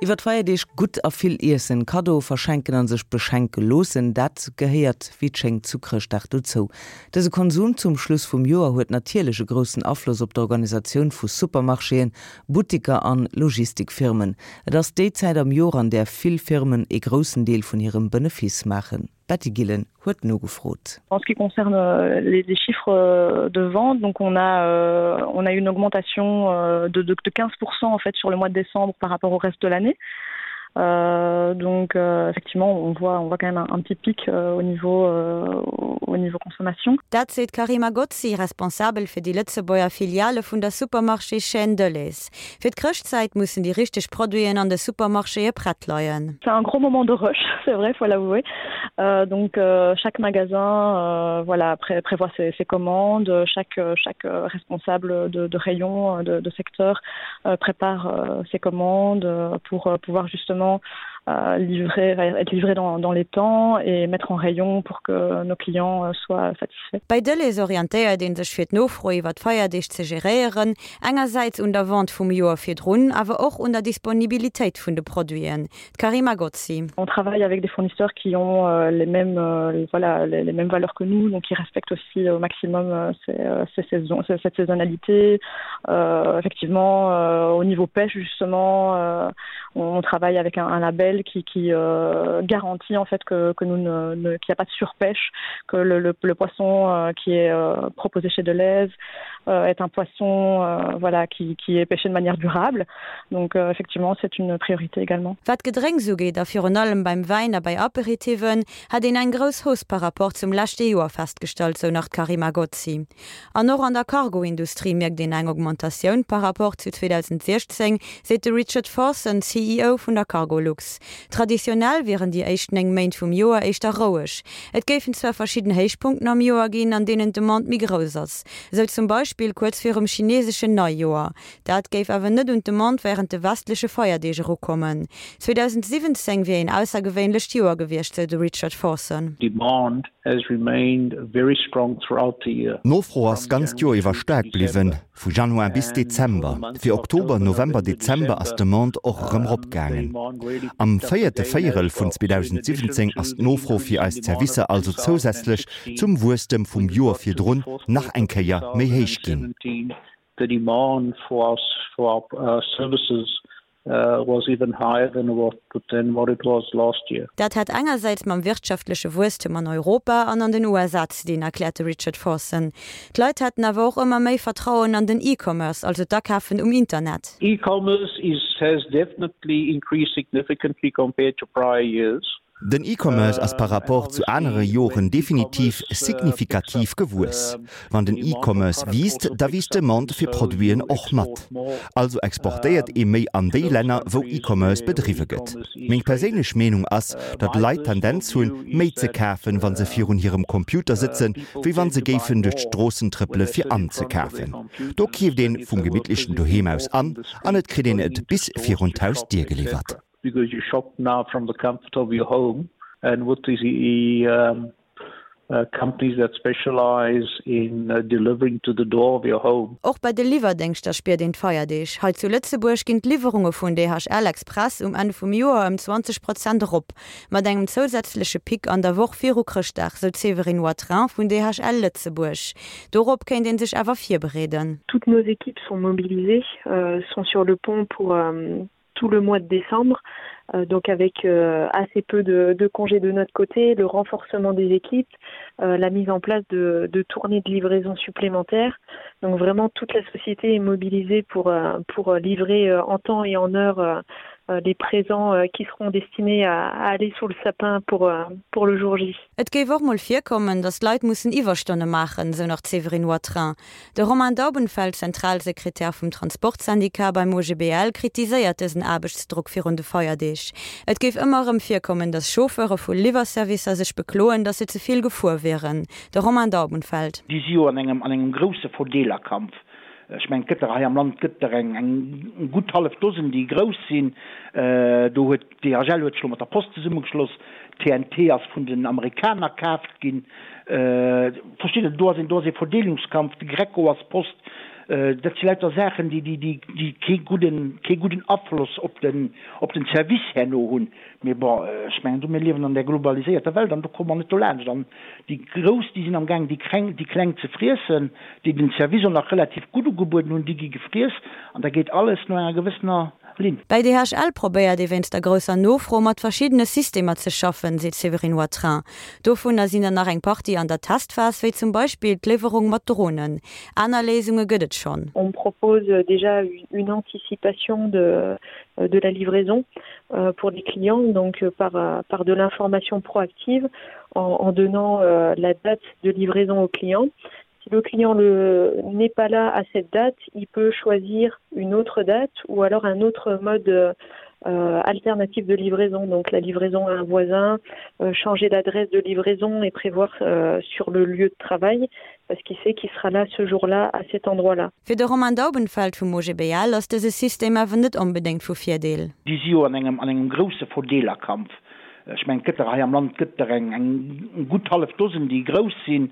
Iwwer d'Feierdeeg gutt a vill iessen, Kaddoe verschenken an sech beschenke loossen, dat gehéiert wéi et schéngt zu Chrëschtdag dozou. Dëse Konsum zum Schluss vum Joer huet natierlech e groussen Afloss op d'Organisatioun vu Supermarchéen, Buttiker an Logistikfirmen. Et ass déi Zäit am Joer an där vill Firmen ee groussen Deel vun hirem Benefice maachen. D'Betty Gillen huet nogefrot. En ce qui concerne les, les chiffres de vente, donc on a, euh, on a une augmentation euh, de, de, de 15% en fait sur le mois de décembre par rapport au reste de l'année. Euh, donc euh, effectivement on voit on voit quand même un, un petit pic euh, au niveau euh, au niveau consommation. Dat seet d'Karima Gozzi, Responsabel fir déi Lëtzebuerger Filiale vun der Supermarchéschaîne Delhaize. Fir d'Chrëschtzäit mussen déi richteg Produiten an de Supermarchéë prett leien. C'est un gros moment de rush, c'est vrai, faut l'avouer. Euh, donc euh, chaque magasin euh, voilà, pré prévoit ses, ses commandes, chaque, chaque responsable de, de rayon, de, de secteur euh, prépare euh, ses commandes pour euh, pouvoir justement euh, livrer, être livré dans, dans les temps et mettre en rayon pour que nos clients euh, soient satisfaits. Bei Delhaize orientéiert ee sech fir d'Nofro iwwer d'Feierdeeg ze geréieren, engersäits un der Vente vum Joer virdrun, awer och un der Disponibilitéit vun de Produiten. D'Karima Gozzi. On travaille avec des fournisseurs qui ont euh, les mêmes, euh, voilà, les, les mêmes valeurs que nous, donc qui respectent aussi au maximum euh, ces, ces saisons, cette saisonnalité. Euh, effectivement, euh, au niveau pêche, justement, euh, on travaille avec un, un label qui, qui euh, garantit en fait que, que nous ne, ne, qu'il n'y a pas de surpêche, que le, le, le poisson euh, qui est euh, proposé chez Deleuze euh, est un poisson euh, voilà, qui, qui est pêché de manière durable. Donc euh, effectivement, c'est une priorité également. Wat d'Gedrénks ugeet, a virun allem beim Wäin a bei Aperitiven, hätt een eng grouss Hausse par rapport zum leschte Joer festgestallt, sou nach d'Karima Gozzi. An och an der Cargo-Industrie mierkt een eng Augmentatioun par rapport zu 2016, seet de Richard Forson, CEO vun der Cargolux. Traditionell wieren déi éischt 9 Méint vum Joer éischter roueg. Et géifen zwar verschidden Héichpunkten am Joer ginn, an deenen d'Demande méi grouss ass. Esou zum Beispill kuerz virum chineeseschen Neijoer. Dat géif awer net un d'Demande wärend de westleche Feierdeeg erukommen. 2017 wier een aussergewéinlecht Joer gewiescht, sou de Richard Forson. Demand has remained very strong throughout the year. D'Nofro ass d'ganzt Joer iwwer staark bliwwen, vu Januar bis Dezember. Fir Oktober, November, Dezember ass d'Demande och erëm eropgaangen. Am véierte Véierel vun 2017 ass d'Nofro fir eis Zerwisser also zousätzlech zum Wuesstem vum Joer virdrun nach eng Kéier méi héich ginn. The demand for our services was even higher than what than what it was last year. Dat hätt engersäits mam wirtschaftleche Wuesstem an Europa an an den USA ze dinn, erkläert de Richard Forson. D'Leit hätten awer och ëmmer méi Vertrauen an den E-Commerce, also d'Akafen um Internet. E-commerce is has definitely increased significantly compared to prior years. Den E-Commerce ass par rapport zu anere Joren definitiv signifikativ gewuess. Wann den E-Commerce wiisst, da wiisst d'Demande fir Produiten och mat. Also exportéiert ee méi an déi Länner, wou E-Commerce bedriwwe gëtt. Meng perséinlech Meenung ass, datt Leit d'Tendenz hunn, méi ze kafen, wa se virun hirem Computer sëtzen, wéi wa se géifen duerch d'Stroossen trëppele fir anzekafen. Do keeft een vum gemittlechen Doheem aus an, an et kritt een et bis virun d'Hausdier geliwwert. because you shop now from the comfort of your home and with the um, uh, companies that specialize in uh, delivering to the door of your home. Och bei de Liwwerdéngschter spiert een d'Feierdeeg. Hei zu Lëtzebuerg ginn d'Liwwerunge vun DHL Express um Enn vum Joer ëm 20 Prozent erop, mat engem zousätzleche Pic an der Woch viru Chrëschtdag, sou d'Séverine Watrin vun DHL Lëtzebuerg. Dorop kéint ee sech awer virbereeden. Toutes nos équipes sont mobilisées, sont sur le pont pour tout le mois de décembre, euh, donc avec euh, assez peu de, de congés de notre côté, le renforcement des équipes, euh, la mise en place de, de tournées de livraison supplémentaires. Donc vraiment toute la société est mobilisée pour, euh, pour livrer euh, en temps et en heure euh, euh les présents euh, qui seront destinés à, à aller sous le sapin pour, euh, pour le jour J. Et géif och mol virkommen, datt Leit mussen Iwwerstonne maachen, sou nach d'Séverine Watrin. De Romain Daubenfeld, Zentralsekretär vum Transportsyndicat beim OGBL, kritiséiert dësen Aarbechtsdrock virun de Feierdeeg. Et géif ëmmer erëm virkommen, datt Chauffeure vu Liwwerservicer sech bekloen, datt se ze vill gefuer wieren. De Romain Daubenfeld. Déi si jo an engem an engem grousse Verdeelerkampf. Ech mengen, et gëtt der hei am Land gëtt der eng eng gutt hallef Dosen, déi grouss sinn. Do huet DHL huet sech elo mat der Post zesummegeschloss. TNT ass vun den Amerikaner kaaft ginn. Versteet Der, do ass een, do ass ee Verdeelungskampf. De Greco ass Post. Dat si lauter Saachen, déi, déi, déi, déi kee gudden, kee gudden Afloss op den, op den Service herno hunn. Mee bon, ech mengen do, mir liewen an där globaliséierter Welt an do komme mer net dolaanscht. An déi Grouss, déi sinn amgaang déi Kreng, déi Kleng ze friessen, déi den Service och nach relativ gutt ugebueden hunn, déi gi gefriess an da geet alles no enger gewëssener Linn. Bei DHL probéiert ee wéinst der grousser Nofro mat verschiddene Systemer ze schaffen, seet d'Séverine Watrin. Dovunner sinn der nach eng Partie an der Testphas, wéi zum Beispill d'Liwwerung mat Dronen. Aner Léisunge gëtt et schonn. On propose déjà une anticipation de de la livraison pour les clients donc par par de l'information proactive en en donnant la date de livraison au client. Si le client le n'est pas là à cette date, il peut choisir une autre date ou alors un autre mode euh, alternatif de livraison, donc la livraison à un voisin, euh, changer d'adresse de livraison et prévoir euh, sur le lieu de travail parce qu'il sait qu'il sera là ce jour-là à cet endroit-là. Fir de Romain Daubenfeld vum OGBL ass dëse System awer net onbedéngt vu Virdeel. Déi si jo an engem an engem grousse Verdeelerkampf. Ech mengen, et gëtt der hei am Land gëtt der eng eng gutt hallef Dosen, déi grouss sinn.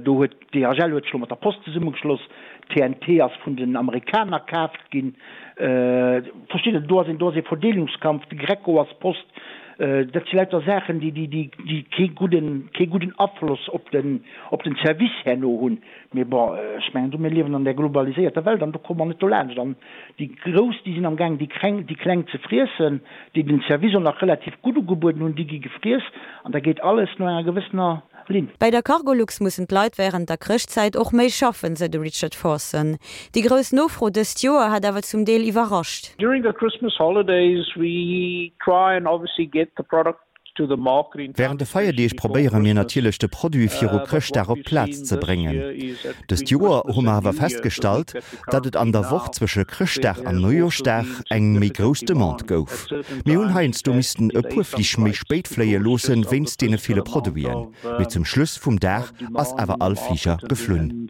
Do huet d'DHL huet sech elo mat der Post zesummegeschloss, TNT ass vun den Amerikaner kaaft ginn. Versteet Der, do ass een do ass ee Verdeelungskampf, de Greco ass Post. Dat si lauter Saachen, déi déi déi déi kee gudden kee gudden Afloss op den op den Service herno hunn. Mee bon, ech mengen do, mir liewen an där globaliséierter Welt an do komme mer net dolaanscht. An déi Grouss, déi sinn amgaang déi Kreng, déi Kleng ze friessen, déi den Service och nach relativ gutt ugebueden hunn, déi gi gefriess an da geet alles no enger gewëssener Linn. Bei der Cargolux mussen d'Leit wärend der Chrëschtzäit och méi schaffen, sou de Richard Forson. Déi grouss Nofro dëst Joer hätt awer zum Deel iwwerrascht. During the Christmas holidays we try and obviously get the product Wärend de Feierdeeg probéiere mir natierlech de Produit viru Chrëschtdag op d'Plaz ze bréngen. Dëst Joer hu mer awer festgestallt, datt et an der Woch zwësche Chrëschtdag an Neujooschdag eng méi grouss Demande gouf. Mir hunn heiansdo missten e puer Flich méi spéit fléie loosse wéinst deene ville Produiten, mee zum Schluss vum Dag ass awer all Fliger geflunn.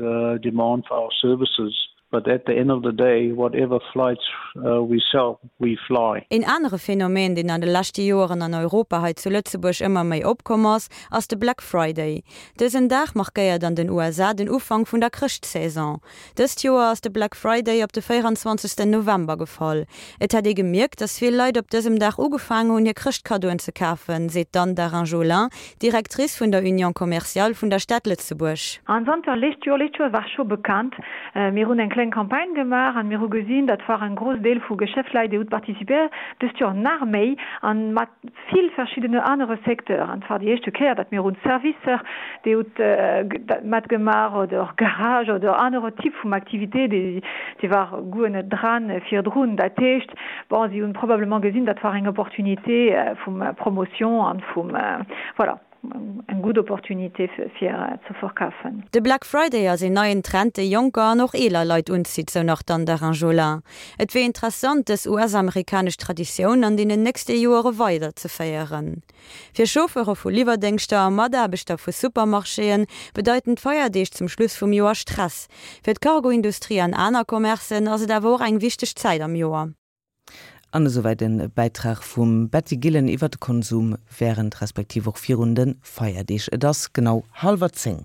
But at the end of the day, whatever flights we sell, we fly. Een anere Phänomen, deen an de leschte Joeren an Europa, hei zu Lëtzebuerg ëmmer méi opkomm ass, ass de Black Friday. Dësen Dag markéiert an den USA den Ufank vun der Chrëschtsaison. Dëst Joer ass de Black Friday op de 24 November gefall. Et hätt ee gemierkt, dass vill Leit op dësem Dag ugefaangen hunn, hir Chrëschtkaddoen ze kafen, seet d'Anne Darin-Jolin, Directrice vun der Union commerciale vun der Stad Lëtzebuerg. An zanter lescht Joer, lescht Joer war scho bekannt, mir hunn eng kleng Campagne gemaach an mir hu gesinn, dat war en gros Deel vu Geschäftsleit, déi hutt participéiert, dëst Joer nach méi an mat vill verschiddene anere Secteuren. An et war déi éischte Kéier, datt mir hunn Servicer, déi hutt matgemaach oder Garage oder anere Typ vum Activité, déi déi war guer net dran virdrun. Dat heescht, bon, si hunn probablement gesinn, dat war eng Opportunité vum Promotion an vum, voilà. Eng gutt Opportunité fir ze verkafen. De Black Friday ass een neien Trend, dee jonker an och eeler Leit unzitt, sou nach d'Anne Darin-Jolin. Et wier interessant, dës US-amerikanesch Traditioun an deenen nächste Joere weider ze féieren. Fir Chauffeure vu Liwwerdéngschter a Mataarbechter vu Supermarchéen bedeiten d'Feierdeeg zum Schluss vum Joer Stress. Fir d'Cargo-Industrie an aner Commercen ass et awer och eng wichteg Zäit am Joer. An esouwäit e Bäitrag vum Betty Gillen iwwer de Konsum wärend respektiv och virun de Feierdeeg. Et ass genau hallwer 10.